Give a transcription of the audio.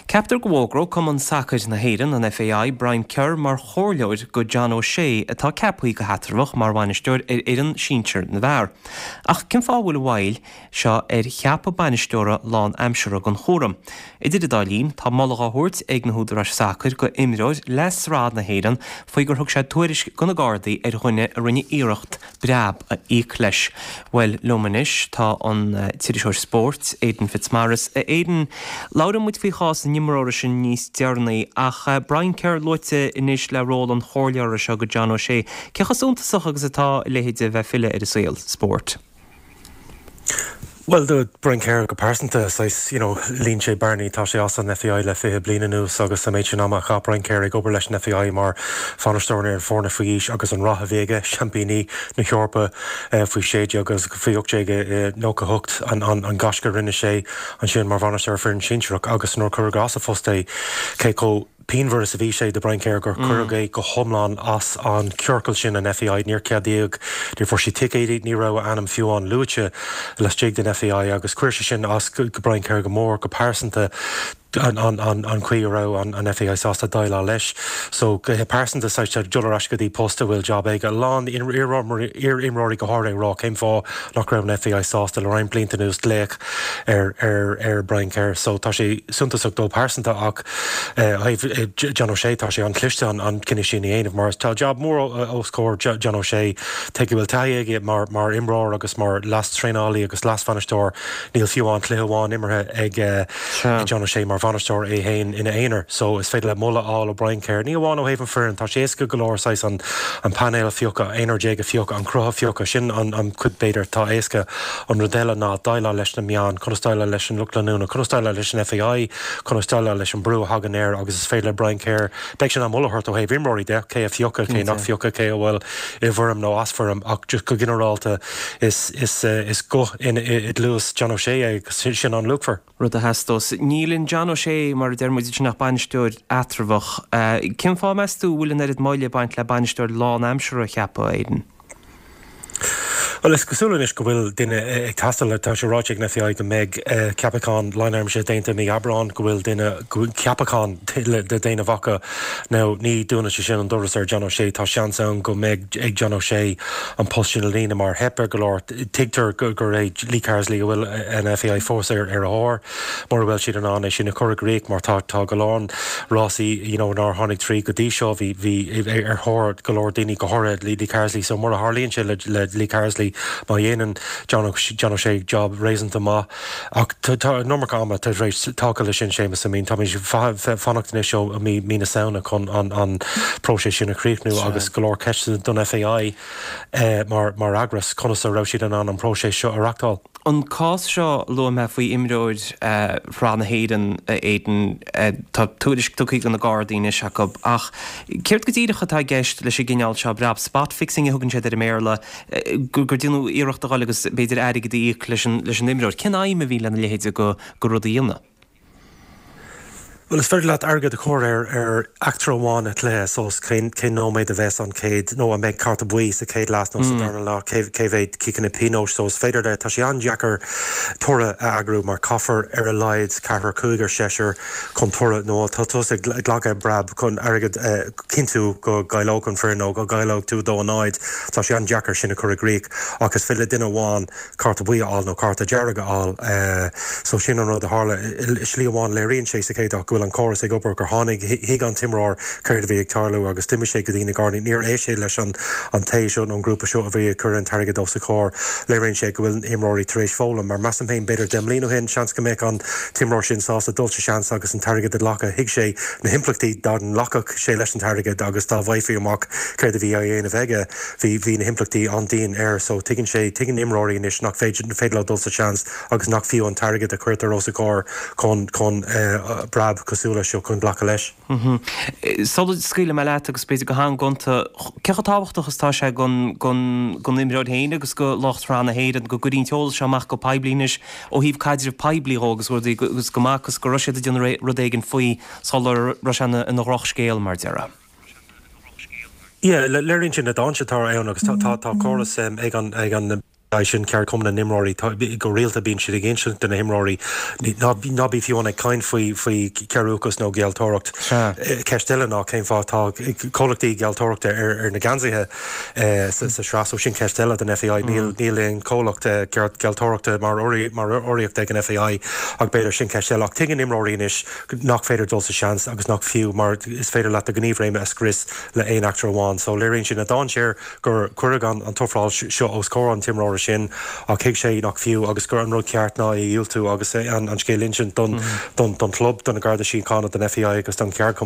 Ceaptar go bhfógróidh Cumann Sacair na hÉireann, an FAI, Brian Kerr mar chomhairleoir go John O'Shea atá ceaptha go heatramhach mar bhainisteoir ar fhoireann sinsir na bhfear. Ach cén fáth a bhfuil an mhoill seo ar cheapadh bainisteora lán-aimseartha don chúram? Idir an dá linn, tá moladh á thabhairt ag na húdaráis sacair go imreoir le sraith na hÉireann faoi gur thug sé tuairisc go na Gardaí ar dhuine a rinne iarracht breab a íoc leis. Bhuel, liom anois tá an t-iriseoir spóirt, Aidan Fitzmaurice. A Aidan, labhróidh muid faoi chás an imreora sin níos deireanaí, ach Brian Kerr luaite anois le ról an chomhairleora seo go John O'Shea. Cé chomh suntasach agus atá a leithéid a bheith ag filleadh ar an saol spóirt? Bhuel, do Brian Kerr go pearsanta, saghas, you know, líon sé bearnaí, tá sé as an FAI le 20 bliain anuas agus an méid sin ama a chaith Brian Kerr ag obair leis an FAI mar bhainisteoir ar an foirne faoi aois agus an rath a bhí aige, seaimpíní na hEorpa faoi 16 agus faoi 18 i 98, an gaisce a rinne sé ansin mar bhainisteoir foireann sinsearach agus nuair a cuireadh as a phost é, cé chomh. pianmhar is a bhí sé do Brian Kerr gur cuireadh é go hiomlán as an ciorcal sin, an FAI. Níor ceadaíodh, níor fuair sé ticéidí, ní raibh a ainm fiú amháin luaite laistigh den FAI agus chuir sé sin as go Brian Kerr go mór, go pearsanta, an chaoi a raibh an FAI sásta déileáil leis. So, go pearsanta, saghas dul ar ais go dtí post a bhfuil jab aige. A lán iar-imreoirí go háirithe ag rá cén fáth nach raibh an FAI sásta le roinnt blianta anuas glaoch ar ar Brian Kerr. So, tá sé suntasach dó pearsanta ach, Ó thaobh John O'Shea, tá sé an-chliste an cinneadh sin a dhéanamh mar tá jab mór os comhair John O'Shea. Tuige go bhfuil taithí aige mar imreoir agus mar leas-traenálaí agus leas-bhainisteoir. Níl fiú amháin cluiche amháin imeartha ag John O'Shea mar bhainisteoir é féin ina aonar. So is féidir leat moladh a fháil ó Brian Kerr. Ní amháin ó thaobh an foireann, tá sé éasca go leor saghas an painéal a phiocadh, aonrar déag a phiocadh, an cruth a phiocadh, sin an chuid b'fhéidir atá éasca. An rud eile ná déileáil leis na meáin, conas déileáil leis an lucht leanúna, conas déileáil leis an FAI, conas déileáil leis an brú a thagann air agus is féidir le Brian Kerr, beidh sé in ann moladh a thabhairt ó thaobh imreoirí de, cé a phiocadh, cé nach phiocadh, cé a bhfuil i bhfoirm nó as foirm ach just go ginearálta is is is guth i gcluas John O'Shea é agus sin an-luachmhar. Rud a theastós. Níl in John O'Shea, mar a deir muid ansin ach bainisteoir eatramhach. Cén fáth meas tú a bhfuil an oiread moille ag baint le bainisteoir lánaimseartha a cheapadh, Aidan? Bhuel, is cosúil anois go bhfuil duine ag teastáil. Tá sé ráite ag an FAI go mbeidh ceapachán lánaimseartha déanta i mí Aibreáin, go bhfuil duine, ceapachán le déanamh acu. Now, ní dúnann sé sin an doras ar John O'Shea. Tá seans ann go mbeidh ag John O'Shea an post sin a líonadh mar theip ar go leor. Tuigtear gur é Lee Carsley a bhfuil an FAI fós ar a thóir. Mura bhfuil siad in ann é sin a chur i gcrích mar tá tá go leor rásaí you know nár tháinig tríd go dtí seo, bhí bhí ar thóir go leor daoine go háirithe Lee Carsley so mura tharlaíonn sé le le Lee Carsley má dhéanann John John O'Shea job réasúnta maith ach tá tá an iomarca ama tar éis tagtha leis sin Séamus I mean táimid fanacht anois ó mí mí na Samhna chun an an próiseas sin a chríochnú agus go leor ceisteanna don FAI mar mar eagras conas a raibh siad in ann an próiseas seo a reachtáil. An cás seo a luaigh mé faoi imreoir Shraith na hÉireann, a Aidan, tá tuairisc tugtha do na Gardaí anois acu, ach céard go díreach atá i gceist leis an gcineál seo breab? Spot fixing a thugann siad air i mBéarla, gur déanadh iarracht a dhul agus b'fhéidir airgead a íoc leis an imreoir. Cén aidhm a bhí lena leithéid de rud a dhéanamh? Bhuel, is féidir leat airgead a chur ar ar eachtra amháin i gcluiche, so cén cén nóiméad a bheas an chéad, nó an mbeidh cárta buí sa chéad leath nó sa darna leath, cé cé mhéad ciceanna pionóis, so is féidir le, tá sé an-deacair toradh a eagrú mar caithfear ar a laghad ceathrar, cúigear, seisear chun toradh nó tá tusa ag glacadh breab chun airgead a chinntiú go gcaillfidh an foireann nó go gcaillfidh tú 2-0, tá sé an-deacair sin a chur i gcrích ach is féidir le duine amháin cárta buí a fháil nó cárta dearg a fháil. So sin an rud a tharla. I slí amháin léiríonn sé sa chéad áit go bhfuil an córas ag obair, gur tháinig, thuig an t-imreoir céard a bhí ag tarlú agus d'imigh sé go dtí na Gardaí. Níor éist sé leis an an té seo nó an grúpa seo a bhí ag cur an t-airgead os a chomhair. Léiríonn sé go bhfuil na himreoirí tar éis foghlaim mar measaim féin b'fhéidir 10 mbliana ó shin seans go mbeadh an t-imreoir sin sásta dul sa seans agus an t-airgead a ghlacadh. Thuig sé na himpleachtaí dá nglacfadh sé leis an t-airgead agus dá bhfaighfí amach céard a bhí á dhéanamh aige. Bhí, bhí na himpleachtaí an-dian air so tuigeann sé, tuigeann imreoirí anois nach féidir, féidir leo dul sa seans agus nach fiú an t-airgead a chuirtear os a gcomhair chun, chun breab cosúil leis seo chun glacadh leis. Sula scaoilfidh mé leat agus b'fhéidir go han-ghonta, cé chomh tábhachtach is atá sé don, don, don imreoir féin agus do lucht Shraith na hÉireann go gcuirfí an t-eolas seo amach go poiblí anois ó thaobh caidreamh poiblí dhó agus rudaí agus go mb'fhacthas go raibh siad ag déanamh rud éigin faoi sula raibh sé ina, ina dhrochscéal mar a déarfá. Yeah, léiríonn sé na dainséir atá ann agus tá córas ag an ag an. Sin ceardchumann na n-imreoirí. Go rialta bíonn siad ag insint do na himreoirí ná bí fiú amháin ag caint faoi faoi chearúchas nó gealltóireacht. Ceist eile ná cén fáth atá comhlachtaí gealltóireachta ar na geansaithe sa sraith so sin ceist eile don FAI. Níl níl aon chomhlacht gealltóireachta mar urraíocht ag an FAI ach b'fhéidir sin ceist eile. Ach tuigeann imreoirí anois nach féidir dul sa seans agus nach fiú mar is féidir leat do ghníomhréime a scrios le aon eachtra amháin. So léiríonn sin an dainséar gur cuireadh an t-ofráil seo os comhair an t-imreora sin ach thuig sé nach fiú agus gur an rud ceart ná é a dhiúltú agus an scéal a insint don don chlub, do na Garda Síochána, don FAI agus don cheardchumann.